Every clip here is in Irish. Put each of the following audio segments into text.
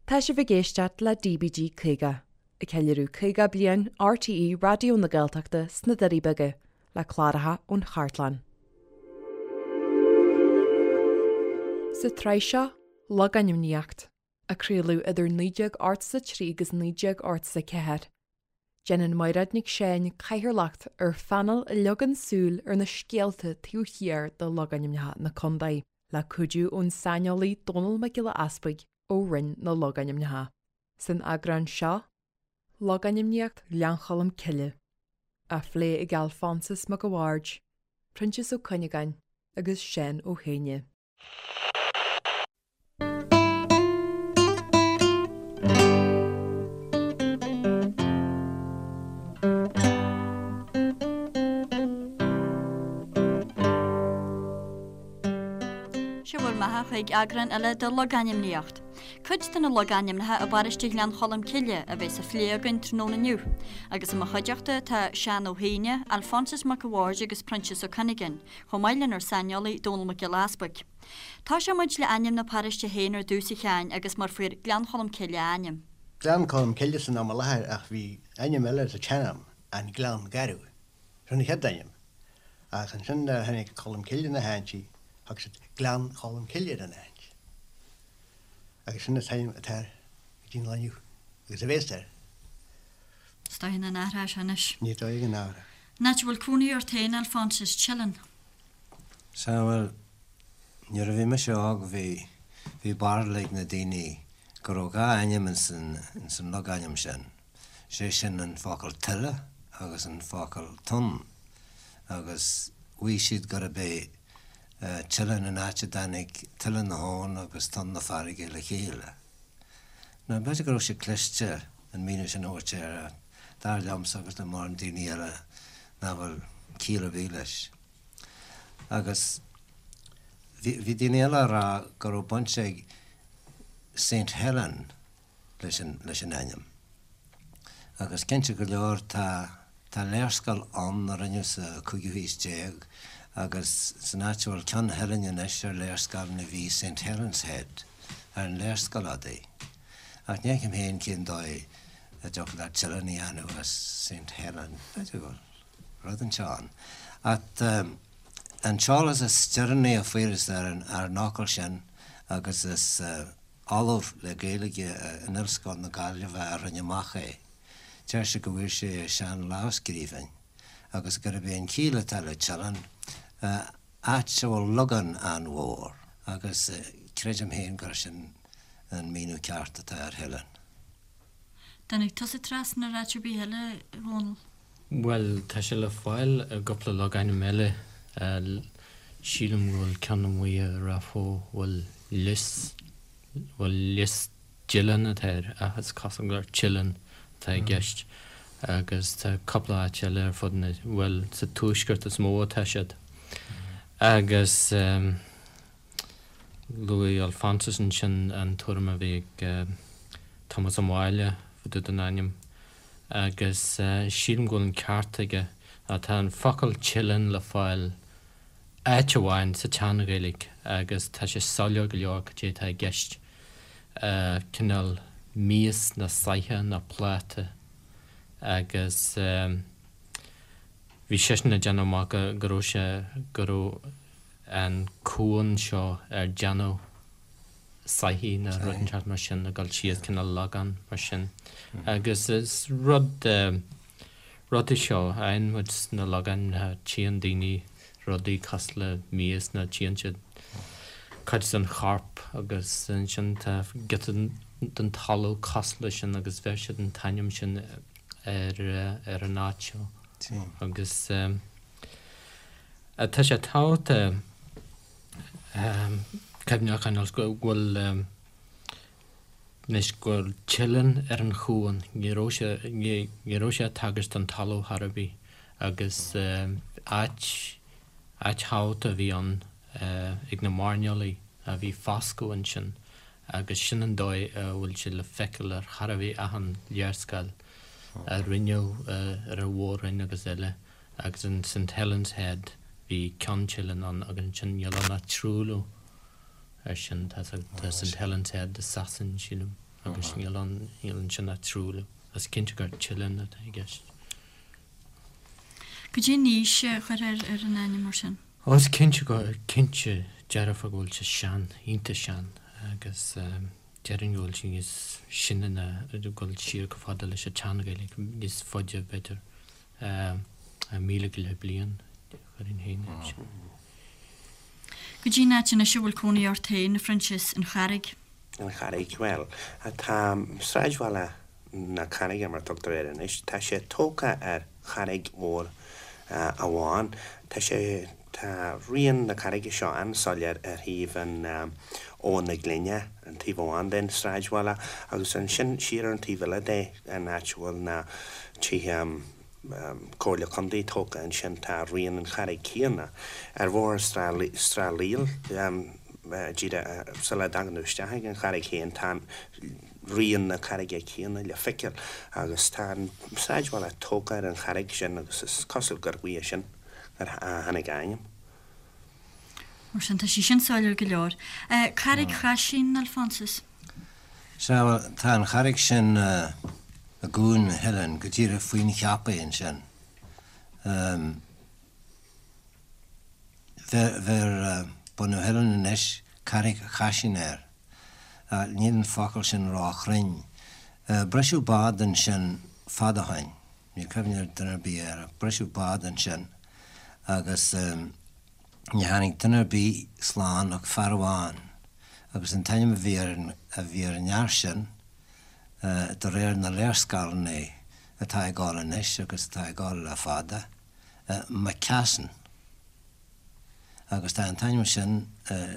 Tá sibh ag éisteacht le DBG 50, ag ceiliúradh 50 bliain RTÉ Raidió na Gaeltachta sna Doirí Beaga, le cláracha ón chartlann. Sa tsraith seo, Logainmníocht, a craoladh idir 1983 agus 1984, déanann Mairéad Nic Seáin cathaoirleacht ar phainéal a leagann súil ar na scéalta taobh thiar de logainmneacha na contae, le cuidiú ón saineolaí Dónall Mac Giolla Easpaig. ó Roinn na Logainmneacha. San eagrán seo, Logainmníocht Ghleann Cholm Cille, á phlé ag Alphonsus Mac a' Bhaird, Proinsias Ó Cuinneagáin agus Seán Ó hÉinne. Sé bhur mbeatha chuig eagrán eile de Logainmníocht. Cuid de na logainmneacha i bparóiste Ghleann Cholm Cille a bheas á phlé againn tráthnóna inniu, agus i mo chuideachta tá Seán Ó hÉinne, Alphonsus Mac a' Bhaird agus Proinsias Ó Cuinneagáin, chomh maith lenár saineolaí Dónall Mac Giolla Easpaig. Tosóidh muid le ainm na paróiste féin ar dtús a Sheáin agus mar fuair Gleann Cholm Cille a ainm. Gleann Cholm Cille san am i láthair ach bhí ainm eile sa tsean-am, an Gleann Garbh. Sin an chéad ainm. Ach ansin nuair a tháinig Colm Cille na háite, thug siad Gleann Cholm Cille ar an áit. Agus sin an t-ainm atá air go dtí an lá inniu, agus a bhéas air. Is dóigh nach n-athróidh sé anois. Ní dóigh go n-athróidh. An áit a bhfuil cónaí ort féin, Alphonsus, Teileann. Sea, bhuel, nuair a bhí mise óg bhí, bhí barúil ag na daoine go raibh dhá ainm ins an, ins an logainm sin. sé sin an focal tuile agus an focal tonn, agus mhaígh siad gurb é Teileann an áit a dtáinig tuile na habhann agus tonn na farraige le chéile. Now, b'fhéidir go raibh siad cliste an míniú sin a thabhairt air, ach dar liomsa agus le mórán daoine eile nach bhfuil ciall ar bith leis. Agus bhí daoine eile á rá go raibh baint ag Saint Helen leis an leis an ainm. Agus cinnte go leor tá tá léarscáil ann a rinneadh sa cúigiú haois déag agus san áit a bhfuil Ceann Theilinn anois ar léarscáileanna bhí Saint Helen's Head ar an léarscáil adaí. Ach ní fheicim féin cén dóigh a dtiocfadh leat Teileann a dhéanamh as Saint Helen. B'fhéidir go bhfuil rud inteacht ann. Ach an t-eolas is deireanaí a fuarthas ar an ar an fhocal sin agus is Ollamh le Gaeilge in Ollscoil na Gaillimhe a rinne amach é. Deir sé go bhfuair sé i sean-lámhscríbhinn agus gurb é an chiall atá le Teileann, áit a bhfuil logán an-mhór, agus creidim féin gur sin an míniú ceart atá ar Theileann. Dtáinig tusa trasna ar áit ar bith eile, a Dhónaill? Bhuel, tá sé le fáil i gcúpla logainm eile. Sílim go bhfuil ceann amuigh i Ráth Bhoth bhfuil Lios, bhuel Lios Dileann atá air ach is cosúil gur Teileann atá i gceist. Agus tá cúpla áit eile ar fud na, bhuel sa tuaisceart is mó atá siad. Agus luaigh Alphonsus ansin an tuairim a bhí ag Tomás Ó Máille fá dtaobh den ainm. agus sílim go bhfuil an ceart aige. Tá an focal Teileann le fáil áit amháin sa tSean-Ghaeilge agus tá sé soiléir go leor cad é atá i gceist, cineál mias nó soitheach nó pláta agus bhí seisean ag déanamh amach go raibh sé, go raibh an cuan seo ar déanadh soithí nó rud inteacht mar sin ag dul síos cineál logán mar sin. Agus is rud rud é seo a fhaigheann muid sna logainmneacha, tchíonn daoine rudaí cosúil le mias nó tchíonn siad cuid den chorp agus ansin tá giota den talamh cosúil leis sin agus bheir siad an t-ainm sin ar ar an áit seo. Agus tá sé tábhachtach Cuimhne a choinneáil go bhfuil anois go bhfuil Teileann ar an chuan, ní raibh sé, ní raibh sé ag tagairt don talamh chor ar bith agus áit, áit thábhachtach a bhí ann ag na mairnéalaigh a bhí foscadh ansin agus sin an dóigh a bhfuil sé le feiceáil ar chor ar bith achan léarscáil a rinneadh ar an Mhór-Roinn agus eile. Agus in St Helen's Head bhí Ceann Teileann ann agus ansin níl ann ach truailliú ar sin. Tá St Helen's Head i Sasain, sílim. Agus níl ann, níl ansin ach truailliú. Is cinnte gur tilleán atá i gceist. Cad é an aois a chuirfeá ar an ainm mar sin? Ó, is cinnte go, cinnte dearfa go bhfuil sé sean, iontach sean, agus déarfainn go bhfuil sé níos sine ná, go bhfuil siar chomh fada leis an tSean-Ghaeilge, níos faide b'fhéidir, 1000 go leith bliain, chuirfinn féin air sin. Cad é an áit anois a bhfuil cónaí ort féin, a Phroinsias, An Charraig? An Charraig, bhuel, tá sráidbhaile na Carraige, mar a tugtar air anois, tá sé tógtha ar charraig mhór amháin. Tá sé, tá rian na carraige seo an-soiléir ar thaobh an Abhainn na Glinne, an taobh amháin den sráidbhaile, agus ansin siar ar an taobh eile de, an áit a bhfuil na tithe, Comhairle Contae tógtha ansin, tá rian an charraig céanna. Ar bhóthar Srath Líl, díreach sula dtagann tú isteach ag an charraig féin, tá rian na carraige céanna le feiceáil agus tá an sráidbhaile tógtha ar an charraig sin agus is cosúil gur uaidh sin a tháinig a ainm. Mar sin, tá sé sin soiléir go leor. Carraig Chaisín, Alphonsus. Sea, bhuel, tá an charraig sin i gCuan na hOileáin, go díreach faoin Cheapaigh ansin. Bheir bunadh na hOileáin anois Carraig Chaisín air. Níl an focal sin róchruinn. Briseadh bád ansin fad ó shoin. Níl cuimhne ag duine ar bith air ach briseadh bád ansin agus ní tháinig duine ar bith slán ach fear amháin agus an t-ainm a bhí ar an a bhí ar an fhear sin de réir na léarscáileanna atá ag gabháil anois agus atá ag gabháil le fada, McCassin. Agus tá an t-ainm sin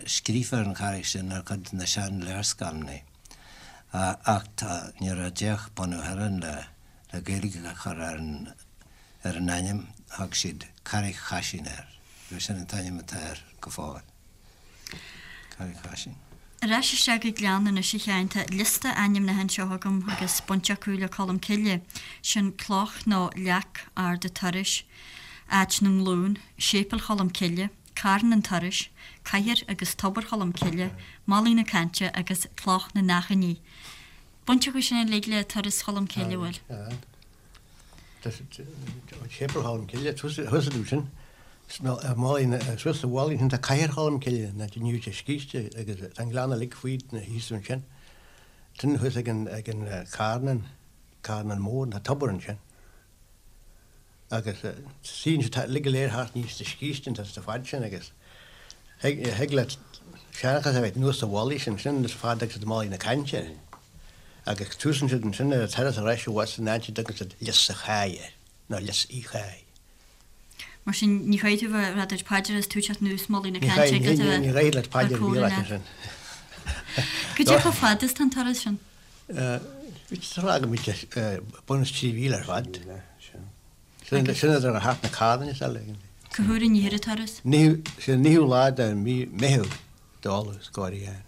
scríofa ar an charraig sin ar chuid de na sean-léarscáileanna. Ach tá, nuair a d'fhéach bunadh na hOileáin le le Gaeilge a chur ar an ar an ainm, thug siad Carraig Chaisín air, agus sin an t-ainm atá air go fóill. Carraig Chaisín. Ar ais isteach go Gleann anois a Sheáin, tá liosta ainmneacha anseo agam agus baint acu le Colm Cille. Sin cloch nó leac ard a' turais, Áit na nGlún, Séipéal Cholm Cille, Carn an Turais, Cathair agus Tobar Cholm Cille, Malaidh na Cainte agus Cloch na nAchainí. Baint acu sin uilig le Turas Cholm Cille, bhfuil? Séipéal Cholm Cille, thuas ansin, suas sa mhullach ansin tá Cathair Cholm Cille, na níl sé scíste agus tá an gleann uilig faoi thíos ansin. Sin thuas ag an carn, Carnán Mór, tá tobar ansin. Agus suíonn siad uilig go léir thart aníos sa scíste an sa fad sin agus thig leat seanchas a bheith anuas sa mhullach sin, sin is fada agus Malaidh na Cainte. Agus túsann siad ansin ar an turas ar ais abhus in áit a dtugann siad Lios a' Cháidh air, nó Lios Uí Cháidh. Mar sin ní chaithfidh tú bheith ag rá duit paidir is tú ag teacht anuas Malaidh na Cainte agus a bheith Ní chaithfidh leat paidir a bhí leat ansin. Cad é chomh fada is tá an turas sin? Tá go mb'fhéidir bun is 3 mhíle ar fad. Sin idir thart na carranna is eile. Cá huair an an turas? Sé an naoú lá de mí Meitheamh d'fholamh is gáirí ann.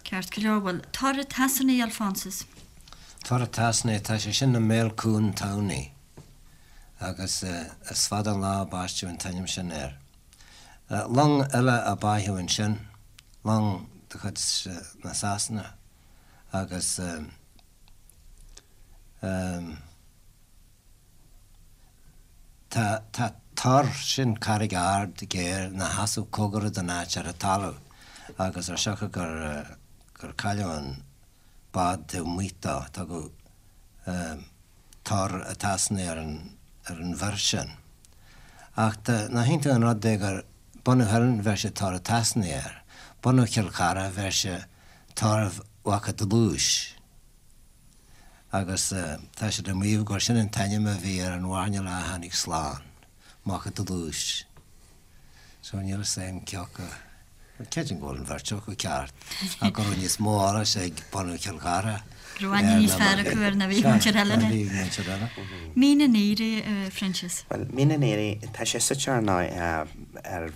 Ceart go leor, bhuel, Tor a' tSasanaigh, Alphonsus. Tor a' tSasanaigh, tá sé sin i mbéal Cuan Tamhnaí agus is fada an lá a baisteadh an t-ainm sin air. Long eile a báitheadh ansin, long de chuid na Sasana agus tá tá tor, sin carraig ard géar, ina sheasamh cóngarach don áit ar an talamh agus ar siocair gur gur cailleadh an bád taobh amuigh dó, tugadh Tor a' tSasanaigh ar an ar an bhur sin. Ach tá, nach iontach an rud é gur bunadh na hOileáin bheir sé Tor a' tSasanaigh air, bunadh Chill Chartha bheir sé Tor Mhac a' Dlúis. Agus tá siad ag maíomh gur sin an t-ainm a bhí ar an mhairnéalach a tháinig slán, Mac a' Dlúis. So níl fhios a'm cé acu, bhuel creidim go bhfuil an bheirt acu ceart, ach go raibh níos mó eolais ag bunadh Chill Chartha Go raibh aithne níos fearr acu air ná bhí ag muintir eile. Ná bhí ag muintir eile. Mín an Aoraigh, a Phroinsias. Bhuel, Mín an Aoraigh, tá sé suite ar ndóigh ar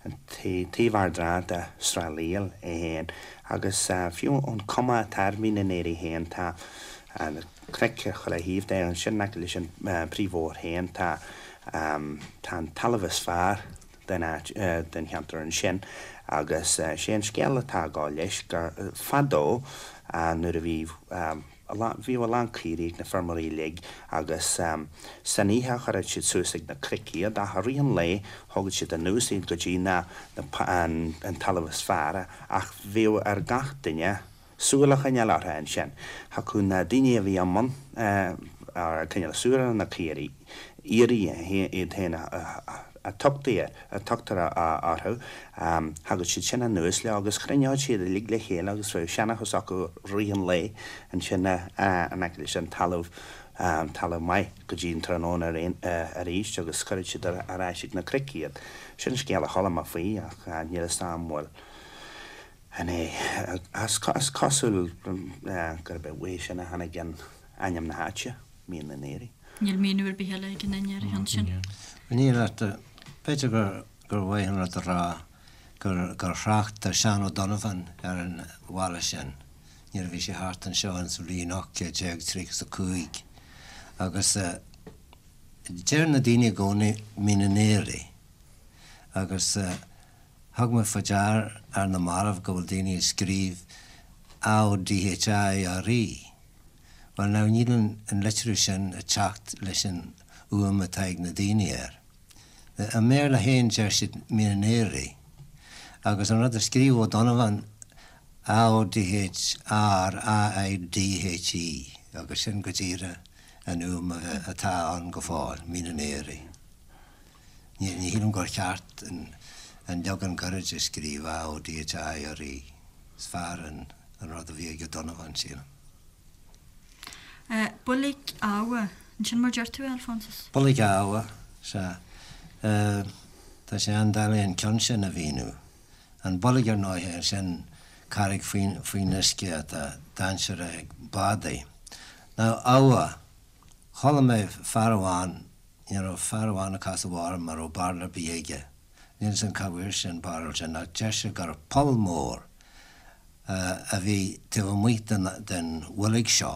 an taobh Ard Trá de Srath Líl é féin agus fiú an cuma atá ar Mhín an Aoraigh féin tá na cnoic ar chuile thaobh de, ansin in aice leis an bpríomhbhóthar féin tá tá an talamh is fearr den áit, den cheantar ansin. Agus sé an scéal atá ag gabháil leis gur fadó nuair a bhí bhíodh a lán caoirigh ag na feirmeoirí uilig agus san oíche chuireadh siad suas ag na cnoic iad ach i rith an lae thógadh siad anuas iad go dtí na an talamh is fearr ach bhíodh ar gach duine súil a choinneáil orthu ansin. Thiocfadh na daoine a bhí i mbun ag coinneáil súil ar na caoirigh, aoirí iad féin a tugtaí a tugtar orthu, thagadh siad sin anuas leo agus chruinneodh siad uilig le chéile agus bheadh seanchas acu rith an lae ansin in aice leis an talamh, talamh maith go dtí an tráthnóna arís agus chuireadh siad ar ais ag na cnoic iad. Sin scéal a chuala mé faoi ach níl fhios a'm an bhfuil. An é? Is cosúil gurb é uaidh sin a tháinig an ainm na háite, Mín na nAoirí. Níl míniú ar bith eile ag aon duine ar an cheann sin. Níl ach b'fhéidir gur mhaith an rud a rá gur thrácht Seán O'Donovan ar an bhaile sin nuair a bhí sé thart anseo ins an bhliain 1835 agus deir na daoine i gcónaí Mín na nAoirí agus Thug mé faoi dear ar na mallaibh go bhfuil daoine ag scríobh A-O-D-H-I-R-E. Bhuel now níl an litriú sin ag teacht leis an fhuaim atá ag na daoine air. I mBéarla féin deir siad Meenaneary. Agus an rud a scríobh O'Donovan A-O-D-H-R A-I-D-H-E agus sin go díreach an fhuaim atá ann go fóill, Meenaneary. Ní shílim gur cheart an leagan gairid a scríobh, A O D H I R E. Is fearr an rud a bhí ag O'Donovan, sílim. Builg Abha, an sin mar deir tú é, Alphonsus? Builg Abha, sea. Tá sé an-doiligh an ceann sin a mhíniú. An bhuilg, ar ndóighe, sin carraig faoin uisce atá dainséarach ag bádaí. Now, Abha, chuala mé fear amháin Ní raibh fear amháin ag casadh orm a raibh barúil ar bith aige. Níl 'fhios a'm cá bhfuair sé an barúil sin ach deir sé gur poll mór a bhí taobh amuigh den bhuilg seo,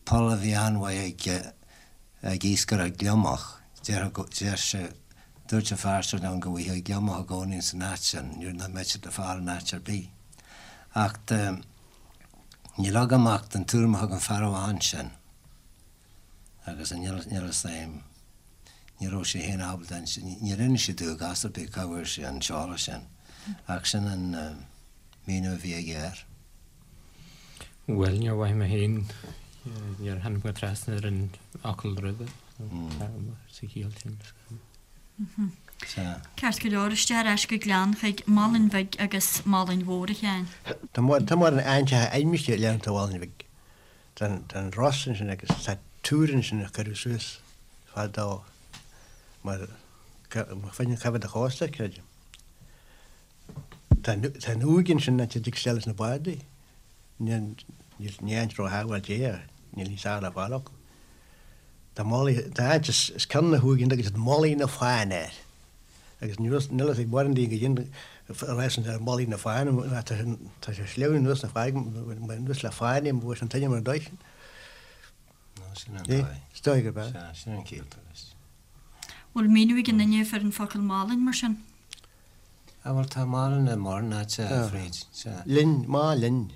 poll a bhí an-mhaith ag ag iascaireacht gliomach. Deir sé, dúirt an fear seo liom go bhfaighfeá gliomach i gcónaí san áit sin, nuair nach mbeadh siad le fáil in áit ar bith. Ach níl agam ach an tuairim a thug an fear amháin sin. Agus níl fhios a'm, ní raibh sé féin ábalta, níor inis sé domh i gcás ar bith cá bhfuair sé an t-eolas sin, ach sin an míniú a bhí aige air. Bhuel, níor mhaith mé féin, níor tháinig mé trasna ar an fhocal roimhe sa chiall sin. Sea. Ceart go leor, isteach ar ais go Gleann chuig Malainn Bhig agus Malainn Mhór, a Sheáin. Tá mórán áiteacha ainmnithe i ngleannta Mhálainn Bhig. Tá an ros ansin agus tá túr ansin a cuireadh suas fadó mar fá choinne coimhéad an chósta, creidim. Tá an uaigh ansin áit a dtig isteach leis na bádaí. Ní áit róshábháilte é ach níl níos fearr le fáil acu. Tá Malaidh, tá áit os cionn na huaighe agus Malaidh na Fáinne air. Agus níl fhios ag mórán daoine goidé a rá san ar Mhalaidh na Fáinne, tá sé sleamhain anuas na farraige, anuas le fáinne, bhuail sé an t-ainm ar an dóigh sin. Nó sin an dóigh. Is dóigh gurb ea. Sea, sin an ciall atá leis. Bhfuil míniú ag aon duine ar an focal Malainn mar sin? Ah bhuel tá Malainn i mórán áite, a Bhríd, sea. Linn, má linn.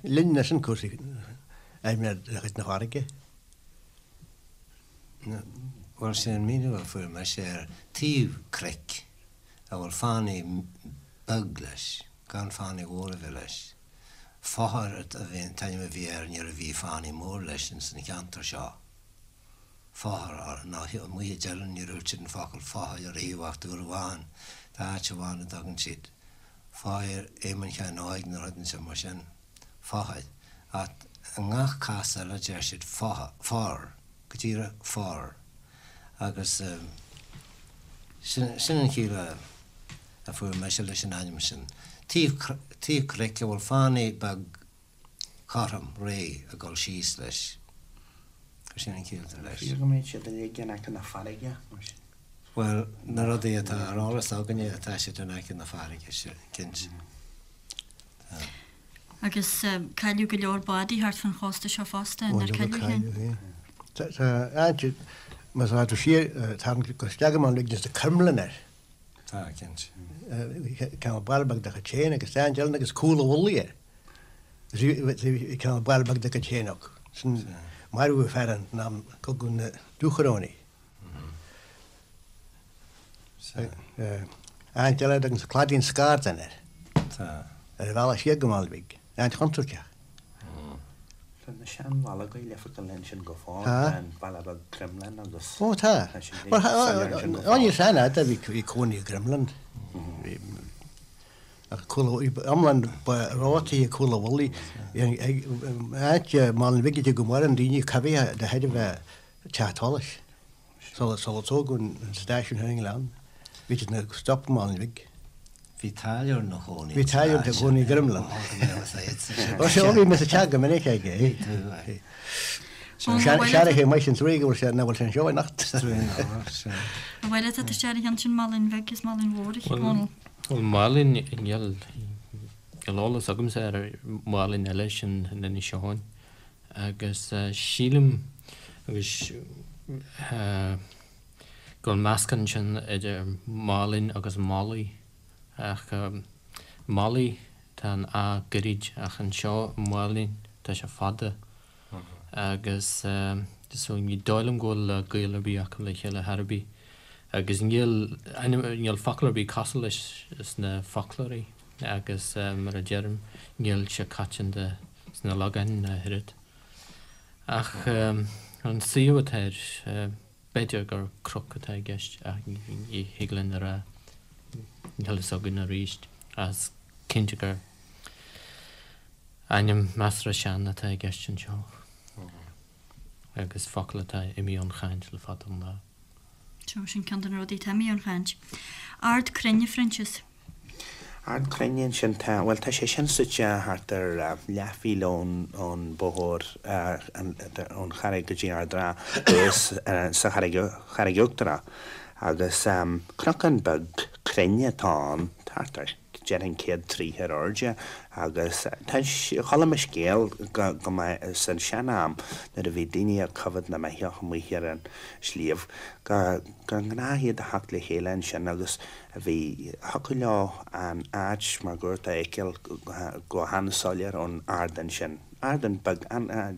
Linn sin cúrsaí aimsire de chuid na farraige. Bhuel, sé an míniú a fuair mise air, taobh cnoic a bhfuil fánaí beag leis, gan fánaí mhór a bheith leis. Fothair an t-ainm a bhí air nuair a bhí fánaí mór leis ins an cheantar seo. Fothair, ná amuigh i dTeileann níor dhúirt siad an focal fothair ariamh ach uair amháin, tá áit amháin a dtugann siad Fothair Éamoinn Sheáin Óig nó rud inteacht mar sin. Fothair. Ach i ngach cás eile deir siad for, go díreach for. Agus sin, sin an chiall a, a fuair mise leis an ainm sin. Taobh, taobh cnoic a bhfuil fánaí beag cothrom, réidh ag dul síos leis. Sin an chiall atá leis. Fíor go mbeidh siad uilig in aice na farraige, mar sin. Bhuel, na rudaí atá ar eolas againne, tá siad in aice na farraige, cinnte. Tá. Agus cailleadh go leor bádaí thart fán chósta seo fosta, nár cailleadh féin? Tá, áit, más tú siar, tarraingt go isteach go Málainn Bhig, tá coirmleann air. Tá, cinnte. Cineál baile beag dá chuid féin agus tá áit eile agus Cúl an Mhullaigh air. Bhí cineál baile beag dá gcuid féin acu. Sin marbhadh fear ann in am Cogadh na Dúchoróiní. Áit eile a dtugann siad Claidín Scardáin air. Tá. Ar an bhealach siar go Málainn Bhig. Áit chontúirteach. Tá na seanbhallaí le feiceáil ansin go fóill. Tá. An baile beag Crumlin agus. Ó tá. Tá siad soiléir ansin go fóill. Ó níl san fhada bhí cónaí i gCrumlin. Ach cúl iomlán ba rátaí ag Cúl an Mhullaigh. Áit Málainn Bhig go maireann daoine coimhthithe de thairbhe teach solais. Sular tógadh an stáisiún ar an nGleann, bhí siad ina stop i Málainn Bhig. Bhí táilliúir ina chónaí Bhí táilliúir ina chónaí i gCrumlin. Ó sea, bhí mé sa teach go minic aige. Seanchaí maith sin truaí go bhfuil sé, nach bhfuil sé anseo anocht. An bhfuil fhios agat isteach ar an cheann sin Málainn Bhig is Málainn Mhór, a Dhónaill? Bhuel, Málainn, níl, níl eolas agamsa ar Mhálainn eile sin in Inis Eoghain. Agus sílim, agus go bhfuil meascán ansin idir Málainn agus Malaidh, ach Malaidh, tá an A gairid, ach anseo i Málainn tá sé fada. Agus so ní dóigh liom go bhfuil gaol ar bith acu le chéile chor ar bith. Agus níl ainm, níl focal ar bith cosúil leis sna foclóirí agus mar a deirim, níl sé coitianta sna logainmneacha ach oiread. Ach an suíomh atá air, b'fhéidir gur cnoc atá i gceist ach ní thig linn a rá, níl fhios againn arís. Ach is cinnte gur ainm measartha sean atá i gceist anseo agus focal atá imithe ón chaint le fada an lá. Seo, sin ceann de na rudaí atá imithe ón chaint. Ard Cruinne, a Phroinsias. Ard Cruinne ansin, tá, bhuel tá sé sin suite thart ar leathmhíle ón, ón bóthar, ón Charraig go dtí Ard an Rátha thuas sa Charraig, Charraig Uachtarach agus cnocán beag cruinn atá ann, thart ar déarfainn 100 troigh ar airde agus tá, chuala mé scéal go, go mba san sean-am nuair a bhí daoine ag coimhéad na mbeithíoch amuigh ar an sliabh go, gur ghnách iad a theacht le chéile ansin agus Bhí, thiocfadh leo an áit máguaird a fheiceáil go han-soiléir ón ardán sin. Ardán beag,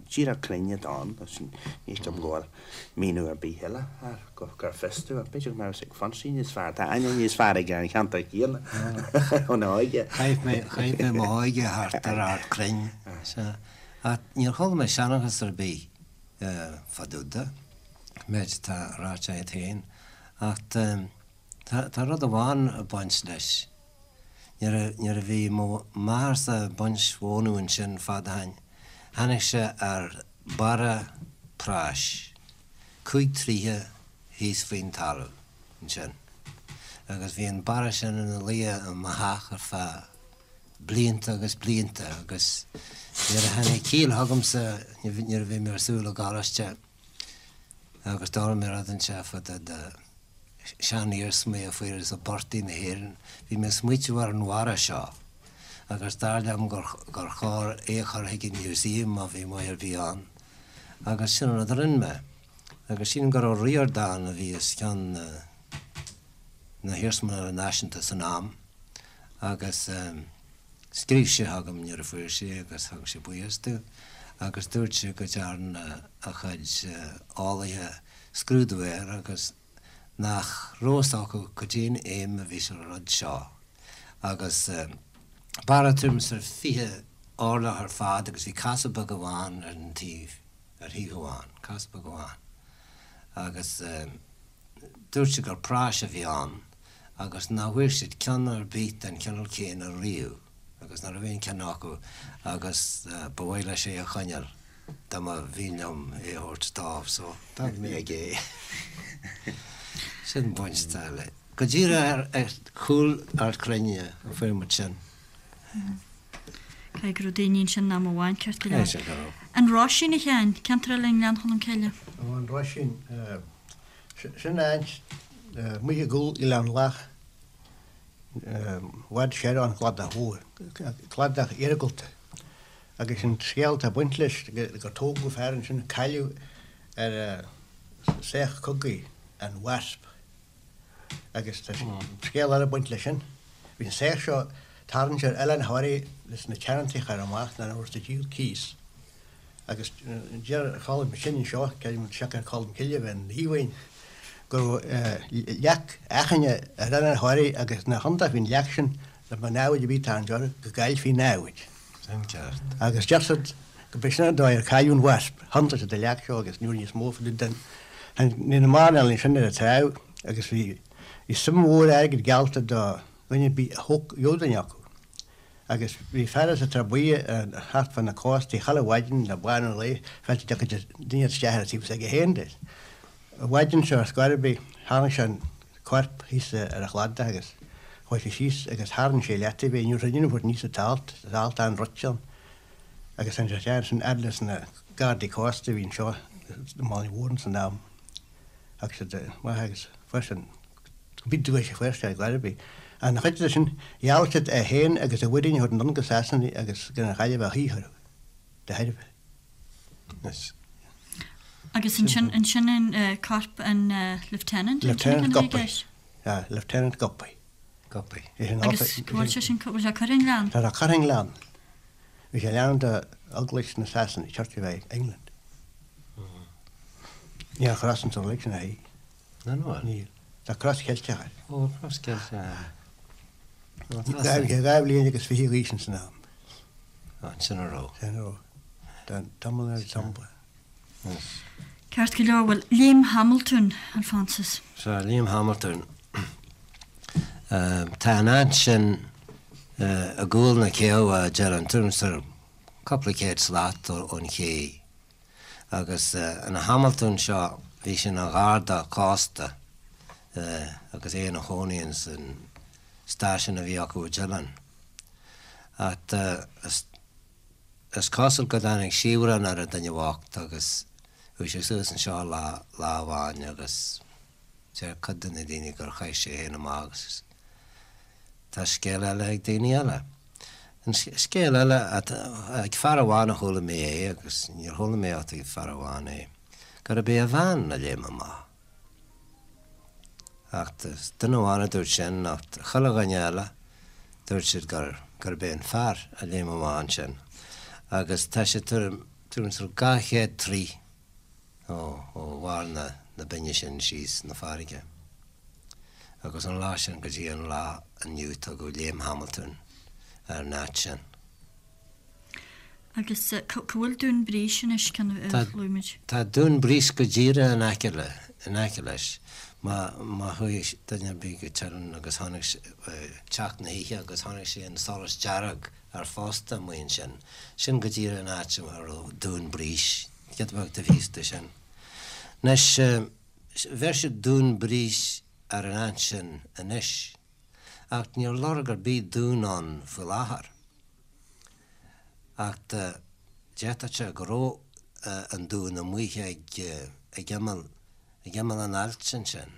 díreach cruinn atá ann, ní feicim go bhfuil míniú ar bith eile air, gur fios domh, ach b'fhéidir go mbeadh fhios ag Fonsie níos fearr, tá aithne níos fearr aige ar an cheantar céanna óna óige. Chaith mé, chaith mé m'óige thart ar Ard Crainn, sea. Ach níor chuala mé seanchas ar bith fá dtaobh de, méid atá ráite agat féin, ach Tá rud amháin ag baint leis. Nuair a bhí mo mháthairsa ag baint mhónadh ansin fad ó shin, tháinig sé ar barra práis, 5 troighe thíos faoin talamh ansin. Agus bhí an barra sin ina luí i mo theach ar feadh blianta agus blianta agus nuair a tháinig ciall chugamsa, nuair a bhí mé ar siúl i gcoláiste, Agus d'fhoghlaim mé rud inteacht fá dtaobh de seaniarsmaí a fuarthas i bportaigh na hÉireann. Bhí mé ag smaoitiú ar an bharra seo agus dar liom gur chóir é a chur chuig an museum má bhí maith ar bith ann. Agus sin an rud a rinne mé. Agus sílim gur Ó Ríordáin a bhí os cionn na hIarsmalainne Náisiúnta san am agus. Scríobh sé chugam nuair a fuair sé agus thug sé buíochas domh agus dúirt sé go dtearn a chuid eolaithe scrúdú air agus nach raibh fhios acu goidé'n fheidhm a bhí sa rud seo agus barra tuairim is ar 20 orlach ar fad agus bhí casadh beag amháin ar an taobh, ar thaobh amháin, casadh beag amháin agus dúirt sé gur práis a bhí ann. agus nach bhfuair siad ceann ar bith den chineál céanna riamh agus nach raibh aon cheann acu agus ba mhaith leis é a choinneáil dá mba mhian liom é a thabhairt dó so d'fhág mé aige é. Sin baint atá le. Go díreach ar chúl Ard Cruinne a fuair muid sin. Caithfidh go raibh daoine ansin am amháin ceart go leor. Caithfidh go raibh. An Roisín a Sheáin, ceantar eile i nGleann Cholm Cille. Ó an Roisín. Sin áit amuigh i gcúl Oileán Lach, i bhfad soir ón gcladach mhór, cladach iargúlta. Agus an scéal atá ag baint leis gur tógadh fear ansin a cailleadh ar saoch cogaidh, an Wasp. Agus tá scéal eile ag baint leis sin. Bhí an saoth seo tarraingt ar Oileán Thoraí leis na teanntaí a chur amach nuair a bhí siad ag díol cíos. Agus deir Colm sin anseo, creidim siocair Colm Cille a bheith ina dhíomhaoin, go raibh leac achaine ar Oileán Thoraí agus nach iontach faoin leac sin dá mbeadh namhaid ar bith ag tarraingt orthu go gcaillfí namhaid. Sin ceart. Agus deir siad go b'é sin an dóigh ar cailleadh an Wasp. Thiontaigh siad an leac seo agus ní raibh níos mó fá dtaobh den Ní na mairnéalaigh sin ar an trá agus bhí suim mhór airgid geallta do dhuine ar bith a gheobhadh duine acu. Agus bhí fear as an Trá Buí thart fá na cóstaí chuile mhaidin le bánú an lae, féachaint an dtiocfadh duine isteach ar an taobh s'aige féin de. An mhaidin seo ar scor ar bith, tháinig sé an corp thíos ar an chladach agus chuaigh sé síos agus tharraing sé leataobh é. Ní raibh duine a thabhairt aníos an t-alt, tá alt an-druidte ann. Agus tháinig sé isteach ansin fhad leis na gardaí cósta a bhí anseo i mBaile Mhúirne san am. Thug siad amach agus fuair sé an Bhí duais a fuair sé ar chor ar bith. Ach ina chuid de sin, gheall siad é féin agus a mhuirín a thabhairt anonn go Sasana agus gan an Ghaillimh a shaothrú de thairbhe. Anois. Agus ansin, ansin an corp an Lieutenant, an sin Lieutenant Guppy. Yeah, Lieutenant Guppy. Guppy. Agus go bhfuil sé sin, go bhfuil sé curtha i ngleann? Tá sé curtha i ngleann. Bhí sé leanúint de Eaglais na Sasana, Church of England. Níl cros ansan uilig sin a thí. Níl. Tá cros Cheilteach air. Ó, cros Cheilteach. Bhí sé 22 bhliain d'aois ins an am. Ansin a raibh. Sin a raibh. Tá tamall ar an Ceart go leor, bhuel, Léim Hamiltún, Alphonsus. Sea, Léim Hamiltún. Tá an áit sin i gcúl na céibhe, a deireann tú, cúpla céad slat ón ché. Agus an Hamiltún seo, bhí sé ina gharda cósta agus é ina chónaí ins an stáisiún a bhí acu i dTeileann. Ach is cosúil go dtáinig siabhrán ar an duine bhocht agus chuaigh sé suas anseo lá amháin agus deir cuid de na daoine gur chaith sé féin amach agus Tá scéal eile ag daoine eile. An scéal eile, ag fear amháin a chuala mé é agus níor chuala mé ach ag fear amháin é, gurb é a bhean a léim amach. Ach duine amháin a dúirt sin ach chuile dhuine eile dúirt siad gurb é an fear a léim amach ansin. Agus tá sé tuairim is 200 troigh ó bharr na binne sin síos na farraige. Agus ón lá sin go dtí an lá inniu tugadh Léim Hamiltún ar an áit sin. Agus cá bhfuil Dún Brís anois, ceann a luaigh muid? Tá Dún Brís go díreach in aice le, in aice leis. Má, má chuaigh duine ar bith go Teileann agus chonaic sé, teacht na hoíche agus chonaic sé an solas dearg ar phosta amuigh ansin, sin go díreach an áit a raibh Dún Brís, giota beag taobh thíos de sin. Anois, Bheir siad Dún Brís ar an áit sin anois, ach níl lorg ar bith dún ann faoi láthair. Ach d'fhéadfadh sé go raibh an dún amuigh ag ag imeall ag imeall an ailt ansin,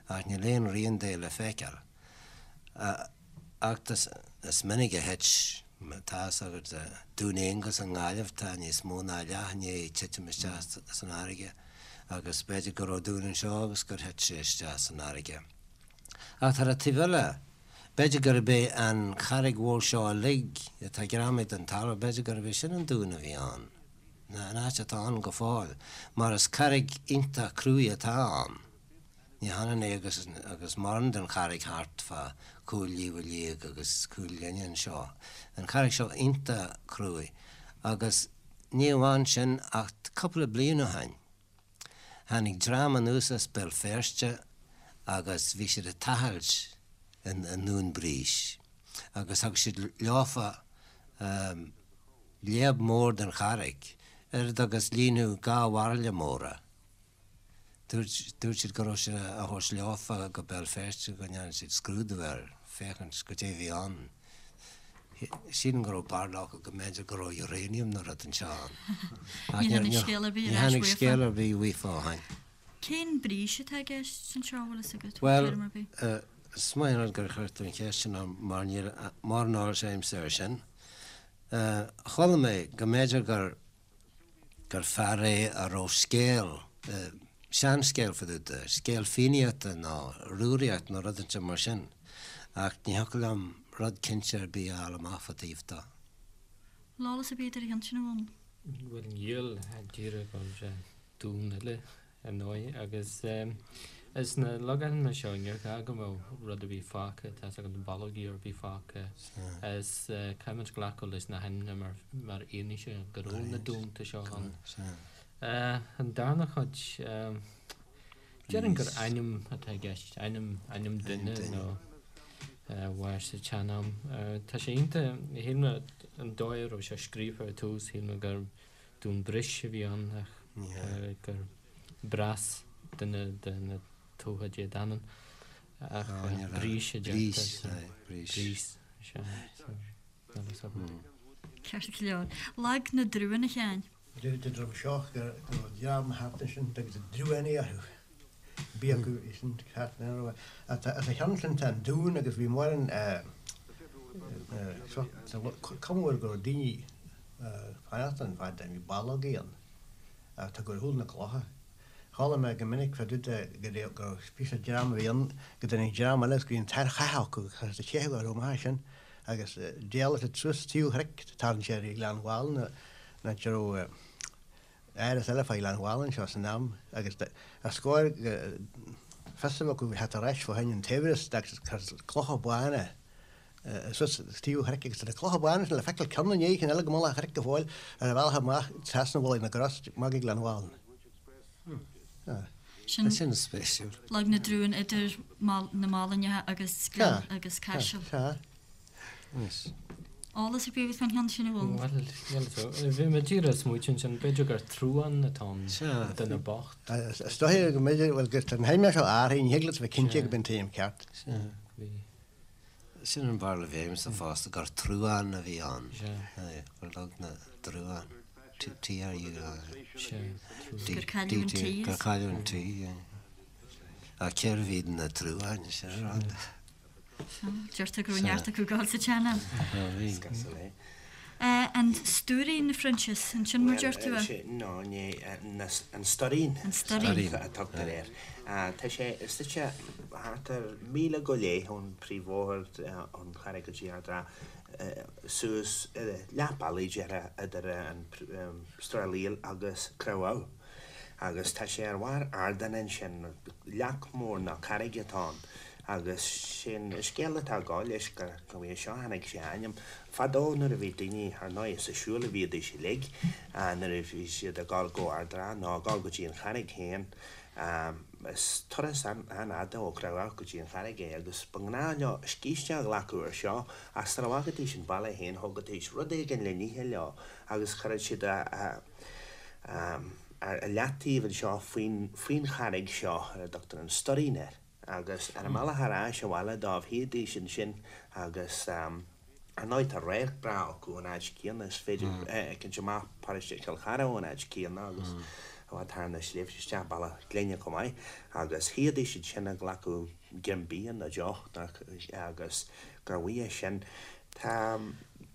ach níl aon rian de le feiceáil. Ach is minic a thit, tá fhios agat, Dún Aonghasa i nGaillimh, tá níos mó ná leath i ndiaidh titim isteach san fharraige agus b'fhéidir go raibh dún anseo agus gur thit sé isteach san fharraige. Ach ar an taobh eile, b'fhéidir gurb é an charraig mhór seo uilig atá greamaithe den talamh, b'fhéidir gurb é sin an dún a bhí ann, an áit atá ann go fóill, mar is carraig iontach cruaidh atá ann. Ní hionann é agus agus mórán den charraig thart fá Chúil Fhliobha Liag agus Cúil Ghlinne anseo. An charraig seo iontach cruaidh agus ní amháin sin ach cúpla bliain ó shin tháinig dream anuas as Béal Feirste agus bhí siad ag tochailt i nDún Brís agus thug siad leofa léab mór den charraig, oiread agus líonfadh dhá bhairille móra. Dúirt siad go raibh sé á thabhairt leofa go Béal Feirste go ndearna siad scrúdú air féachaint goidé a bhí ann. Sílim go raibh barúil acu go mb'fhéidir go raibh uranium nó rud inteacht ann. Ach Ní tháinig scéal ar bith ar ais uafa. Ní tháinig scéal ar bith uafa ó shin. Cén Brís atá i gceist anseo, bhfuil fhios agat? Bhuel, is maith an rud gur chuir tú an cheist sin orm mar níl mórán eolais agamsa air sin. Chuala mé go mb'fhéidir gur gur fear é a raibh scéal. Seanscéal fá dtaobh de, scéal Fiannaíochta nó Rúraíocht nó rud inteacht mar sin, ach ní thiocfadh liom rud cinnte ar bith a fháil amach fá dtaobh de. Bhfuil eolas ar bith agat ar an cheann sin a Dhónaill? Bhuel níl, díreach go bhfuil sé dún eile ar ndóigh agus is na logainmneacha seo níor ghá go mbeadh rud ar bith fágtha, tá 's agat ballógaí ar bith fágtha is caithfimid glacadh leis na hainmneacha mar mar fhianaise go raibh na dúnta seo ann. An darna chuid, déarfainn gur ainm atá i gceist, ainm, ainm duine nó mhair sa tsean-am. Tá sé iontach, shíl mé an dóigh a raibh sé scríofa ar tús, shíl mé gur Dún Bris a bhí ann ach gur Breas duine de na Tuatha Dé Danann ach Brís a deirtear. Brís, sea. Ceart go leor. Lag na dTruan, a Sheáin. Deirtear dom seo go raibh dream thart ansin agus Druanaí orthu. Bhí acu sin thart ina raibh. As a cheann sin tá an dún agus bhí mórán cuma air go raibh daoine fanacht ann fad bhí ballógaí ann ach tá gur shúil na clocha. Chuala mé go minic fá dtaobh de go raibh píosa dream a bhí ann go dtáinig dream eile agus go bhí an t-ár chath acu agus a teitheadh orthu amach as sin agus d'éalaigh siad suas taobh chnoic tarraing sé ar Ghleann Mhálanna an áit a raibh áras eile fá Ghleann Mhálanna anseo san am agus ar scór fios a bheith acu theacht ar ais fá choinne an tsaibhreas agus clocha bána suas taobh an chnoic agus tá na clocha bána sin le feiceáil ceann i ndiaidh cinn eile go mullach an chnoic go fóill ar a bhealach amach trasna Mhullach na gCros amach go Gleann Mhálanna. Sin Sin spéisiúil. Lag na dTruan idir na Málainneacha agus Gleann agus Caiseal. Sea. Eolas ar bith agat fán cheann sin a bhfuil? Bhuel, níl a fhios. Bhí mé díreach ag smaoitiú ansin, b'fhéidir gur truán atá ann, duine bocht. Is dóiche go mb'fhéidir, bhuel, gur tá an t-ainm seo athraithe, ní thig leat a bheith cinnte gurb é an t-ainm ceart. Sea. Bhí. Sin an bharúil a bhí agamsa fosta, gur truán a bhí ann. Sea. Gur Lag na dTruán. T R U A N. Sea, truán. Gur cailleadh an T. Gur cailleadh an T, yeah. Ach cérbh iad na truáin, sin an rud. Deirtear go raibh neart acu ag gabháil sa tsean-am. An Stuairín, a Phroinsias, an sin mar deir tú é? No, ní, an Stoirín. An Stoirín. A tugtar air. Tá sé suite thart ar mhíle go leith ón príomhbhóthar ón Charraig go dtí Ard an Rátha, suas leath bealaigh déarfá idir an Srath Liail agus Creamh Agus tá sé ar bharr ardáin ansin, leac mór nó carraig atá ann. Agus sé'n scéal atá ag gabháil leis gur uaidh seo a tháinig sé a ainm. Fadó nuair a bhí daoine, ar ndóigh is ag siúl a bhíodís uilig, nuair a bhí siad ag gabháil go Ard an Rátha nó ag gabháil go dtí an Charraig féin, is turas an-fhada ó Chreamh Abhac go dtí an Charraig é agus ba ghnáth leo scíste a ghlacadh ar seo ach sara bhfágaidís an baile féin thógaidís rud éigin le n-ithe leo agus chuireadh siad a ar leataobh anseo faoin charraig seo ar a dtugtar an Stoirín air agus ar a mbealach ar ais abhaile dóibh shuídís ansin agus ar ndóigh tá radharc breá acu ón áit céanna, is féidir féachaint amach paróiste Chill Chartha ón áit céanna agus i bhfad thar na sléibhte isteach Bealach Glinne chomh maith agus shuídís ansin ag glacadh greim bia nó deoch agus gur uaidh sin tá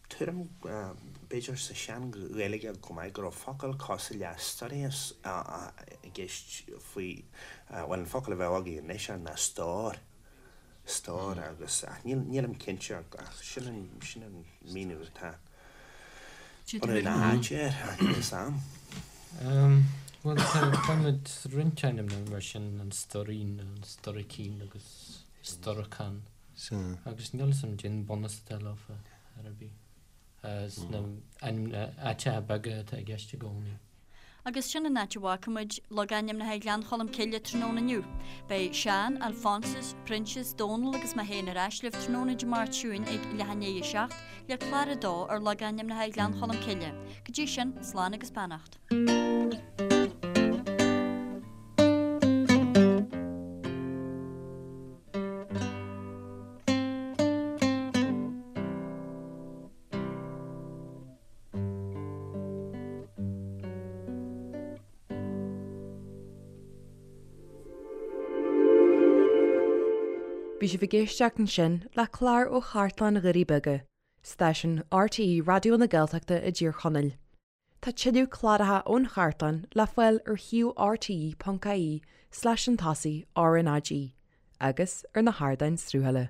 Tuairim, b'fhéidir, sa Sean-Ghaeilge chomh maith, go raibh focal cosúil le storias i gceist faoi, bhuel, an focal a bheadh againn anois air ná stór, stór agus, ach nílim cinnte ach sin an, sin an míniú atá bunadh na háite air, ach níl 'fhios a'm. Bhuel, tá, faighimid roinnt ainmneacha mar sin, an Stoirín, an Storicín agus Storacán. Agus níl 'fhios a'm cén bunús atá leofa ar ar bith. Sna áiteacha beaga atá i gceist i gcónaí. Agus sin an áit a bhfágfaimid logainmneacha Ghleann Cholm Cille tráthnóna inniu. Beidh Seán, Alphonsus, Proinsias, Dónal agus mé féin ar ais libh tráthnóna Dé Máirt seo chugainn ag leath i ndiaidh a 7 le clár a dó ar logainmneacha Ghleann Cholm Cille. Go dtí sin, slán agus beannacht. Bhí sibh ag éisteacht ansin le clár ó Chartlann Dhoirí Beaga, stáisiún RTÉ Raidió na Gaeltachta i dTír Chonaill. Tá tuilleadh cláracha ón chartlann le fáil ar shuíomh rte.ie slash chun tosaigh RnaG agus ar na hardáin sruthaithe.